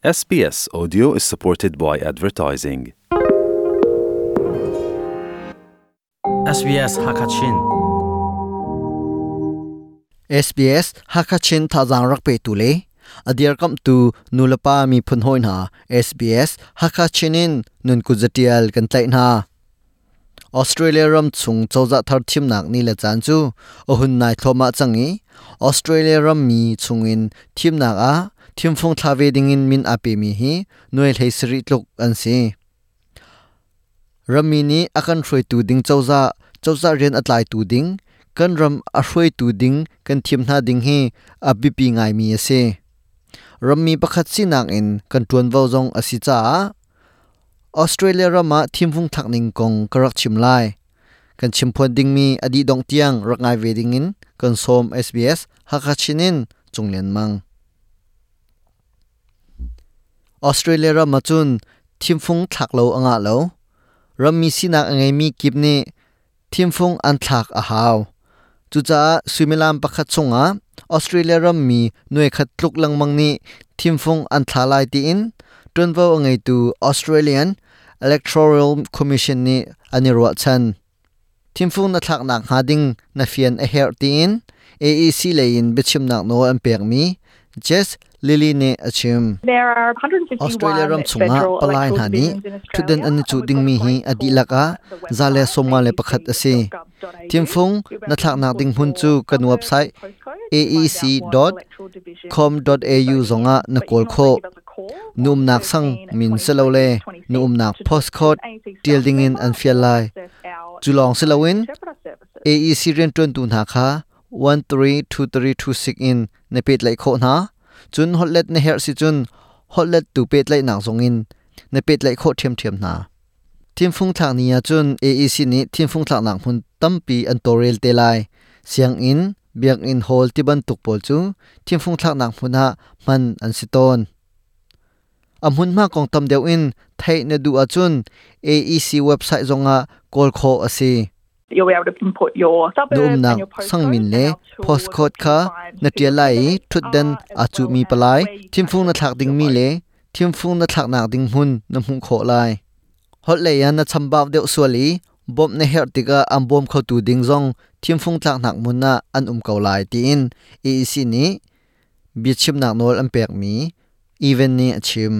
SBS Audio is supported by advertising. SBS Hakachin. SBS Hakachin thazang rak pe tu le adiar kam tu nulapa mi phun hoi hna SBS Hakachin in nun ku zatial kan tlai hna. Australia ram chung cozah thar thimnak ni le caan cu a hun nai thluahmah cang i Australia ram mi chungin thimnak ah thimfung thla ve dingin min aa pemi hi nuai hlei sarih tluk an si. Rammi nih a kan hruaitu ding cozah, cozah rian a tlaitu ding, kan ram a hruaitu ding kan thim hna ding hi a biapi ngaimi a si. Rammi pakhat sinak in kan ṭuanvo zong a si caah Australia ram ah thimfung thlak ning kong ka rak chim lai. Kan chimphuan dingmi a dih dongh tiang rak ngai ve dingin kan sawm SBS Hakha Chin in Cung Lian Mang. Australia ram ah cun thimfung thlak lo a ngah lo. Rammi sinak a ngeimi kip nih thimfung an thlak a hau. Cucaah suimilam pakhat chungah Australia rammi nuaikhat tluk lengmang nih thimfung an thla lai tiin ṭuanvo a ngeitu Australian Electoral Commission nih an i ruahchan. Thimfung na thlaknak hnga ding na fian a herh tiin AEC lei in biachimnak nawl an pekmi Jess Lilly nih a chim. Australia ram chungah palai hna nih ṭhutdan an i cuh dingmi hi a dihlak ah 151 a si. Thimfung na thlaknak ding hmun cu kan website aec.com.au zongah na kawl khawh. Na umnak sang min silole na umnak postcode ṭial dingin an fial lai. Cu lawng si loin AEC rianṭuantu hna kha 132326 in na pehtlaih khawh hna. Cun holhlet na herh si cun holhlettu pehtlaihnak zongin na pehtlaih khawh ṭhiamṭhiam hna. Thimfung thlak ni ah cun AEC nih thimfung thlaknak hmun tampi an tawlrel te lai. Sianginn, biakinn hall tibantuk pawl cu thimfung thlaknak hmun ah hman an si tawn. A hmunhma kong tam deuh in theih na duh ahcun AEC website zongah kawl khawh a si. Na umnak sangmin le postcode kha na ṭial lai i ṭhutdan aa cuhmi palai, thimfung na thlak dingmi le thimfung na thlaknak ding hmun na hmuh khawh lai. Holh lei ah na chambau deuh sual i bawmh na herh tikah an bawm khotu ding zong thimfung tlaknak hmun ah an um ko lai tiin AEC nih biachimnak nawl an pekmi Evan nih a chim.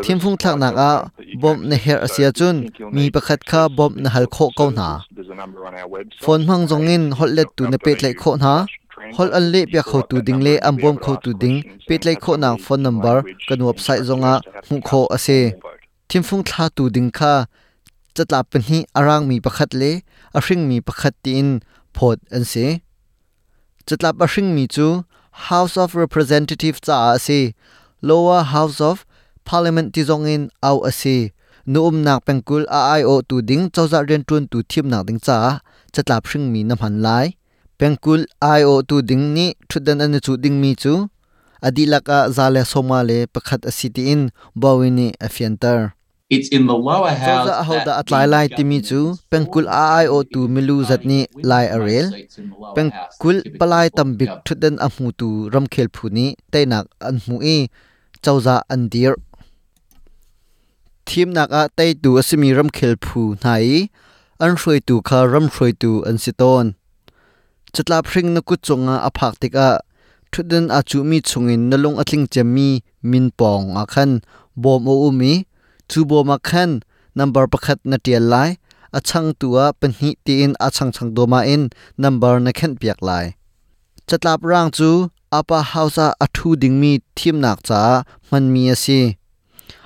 Thimfung thlaknak ah bawmh na herh a si ahcun mi pakhat kha bawmh na hal khawh ko hna. Phone hmang zongin holhlettu na pehtlaih khawh hna. Holh an lehpiak khotu ding le an bawm khotu ding pehtlaih khawhnak phone number kan website zongah hmuh khawh a si. Thimfung thlatu ding kha catlap pahnih a rangmi pakhat le a hringmi pakhat tiin phawt an si. Catlap a hringmi cu House of Representatives caah a si. Lower House of Parliament ti zongin auh a si. Na umnak pengkulh a aiawhtu ding cozah rianṭuantu thimnak ding caah catlap hringmi na hman lai. Pengkulh aiawhtu ding nih ṭhutdan an i cuh dingmi cu a dihlak ah 151 a si tiin Bowie nih a fianter. Cozah ahodah a tlai lai timi cu pengkulh a aiawhtu milu zat nih lai a rel. Pengkulh palai tambik ṭhutdan a hmutu ramkhel phu nih teinak an hmuh i cozah an dirh. Thimnak ah teitu a simi ramkhel phu hna i an hruaitu kha ram hruaitu an si tawn. Catlap hring na kut cungah a phak tikah ṭhutdan aa cuhmi chungin na lung a tling cemmi min pawng ah khan bawm a um i cu bawm ah khan nambar pakhat na ṭial lai, a changtu ah pahnih tiin a changchang dawmah in nambar na khenhpiak lai. Catlap raang cu Upper House ah a ṭhu dingmi thimnak caah hmanmi a si.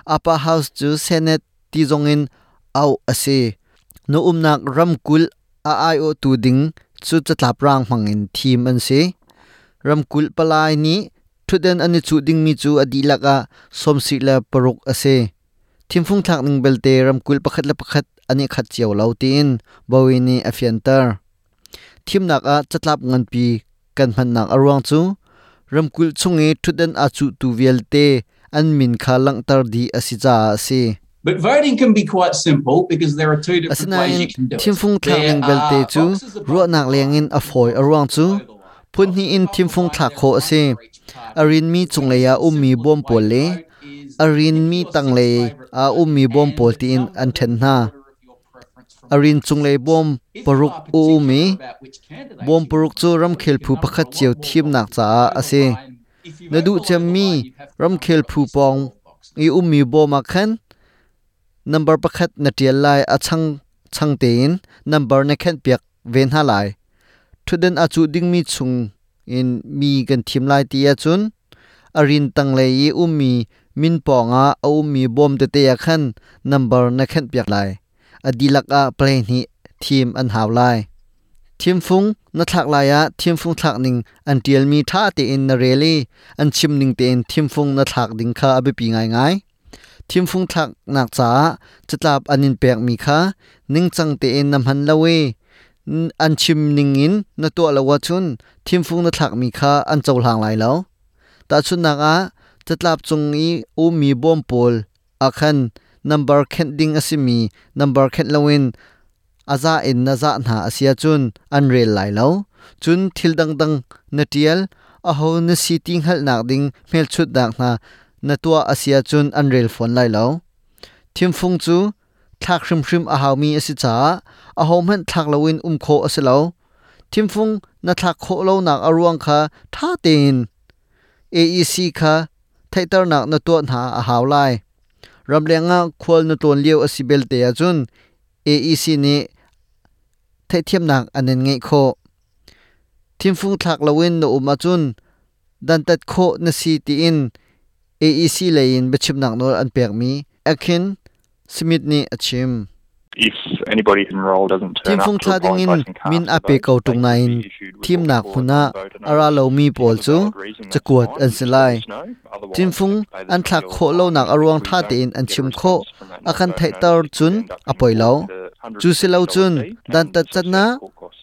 Upper House cu Senate ti zongin auh a si. Na umnak ramkulh a aiawhtu ding cu catlap raang hmangin thim an si. Ramkulh palai nih ṭhutdan an i cuh dingmi cu a dihlak ah 76 a si. Thimfung thlak ning belte ramkulh pakhat le pakhat an i khat cio lo tiin Bowie nih a fianter. Thimnak ah catlap nganpi kan hmannak a ruang cu ramkulh chung i ṭhutdan aa cuhtu vialte an min kha langhter dih a si caah a si. But voting can be quite simple because there are two different ways Asinain you can do it. thimfung thlak There ning belte are cu boxes above ruahnak the lengin a fawi a ruang cu line. Phun hnih in thimfung thlak khawh a si. A rinmi cunglei ah ummi bawm pawl le a rinmi tanglei ah ummi bawm pawl tiin an ṭhen hna. A rin cunglei bawm paruk a um i bawm paruk cu ramkhel phu pakhat cio thimnak caah a si. Na duh cemmi ramkhel phu pawng i ummi bawm ah khan number pakhat na ṭial lai a chang chang tein number na khenhpiak ve hna lai. Ṭhutdan a cuh dingmi chung in mi kan thim lai ti ahcun a rin tanglei i ummi min pawngah a ummi bawm tete ah khan number na khenhpiak lai. A dihlak ah play hnih thim an hau lai. Thimfung na thlak lai ah thimfung thlak ning an ṭialmi ṭha tein na rel i an chim ning tein thimfung na thlak ding kha a biapi ngaingai. Thimfung thlaknak caah catlap an in pekmi kha ningcang tein na hman lo i an chim ningin na tuah lo ahcun thimfung na thlakmi kha an cohlang lai lo. Tahchunhnak ah, catlap cung i ummi bawm pawl ah khan nambar khenh ding a simi nambar khenh loin a za in na zah hna a si ahcun an rel lai lo. Cun thil dangdang na ṭial, aho na si ti hngalhnak ding hmelchunhnak hna na tuah a si ahcun an rel fawn lai lo. Thimfung cu thlak hrimhrim a haumi a si caah ahohmanh thlak loin um khawh a si lo. Thimfung na thlak khawh lonak a ruang kha ṭha tein AEC kha theihternak na tuah hna a hau lai. Ramleng ah khual na tlawn lio a si belte ahcun AEC nih theihthiamnak an in ngeih khawh. Thimfung thlak loin na um ahcun dantat khawh na si tiin AEC lei in biachimnak nawl an pekmi Akin Smith nih a chim. Thimfung thla dingin min a pe ko ṭung nain thimnak hmun ah a ra lomi pawl cu cakuat an si lai. Thimfung an thlak khawh lonak a ruang ṭha tein an chim khawh a kan theihter cun a poi lo. Cu si lo cun dantat can ah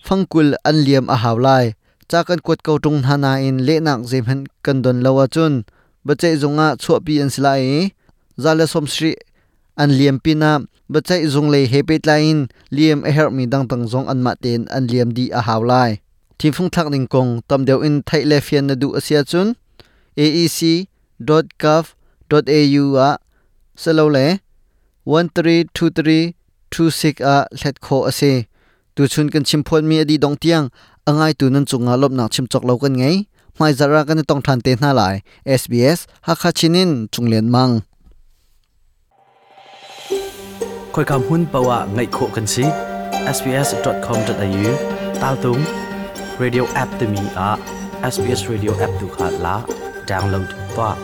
fangkul an liam a hau lai. Ca kan kuat ko ṭung hna nain lehnak zeihmanh kan don lo ahcun biaceih zung ah chuahpi an si lai i 170 an liam pinah biaceih zung lei he pehtlai in liam a herhmi dangdang zong anmah tein an liam dih a hau lai. Thimfung thlak ning kong tam deuh in theih le fian na duh a si ahcun aec.gov.au ah silole 1323 26 ah hlet khawh a si. Tuchun kan chimphuanmi a dih dong tiang a ngaitu nan cungah lawmhnak chim cawk lo kan ngei. Hmaizarh ah kan i tong ṭhan te hna lai. SBS Hakha Chin in Cung Lian Mang. Khoika hmun paoh ah ngaih khawh kan si. sbs.com.au taltung radio app timi ah SBS radio app tu kha la download tuah.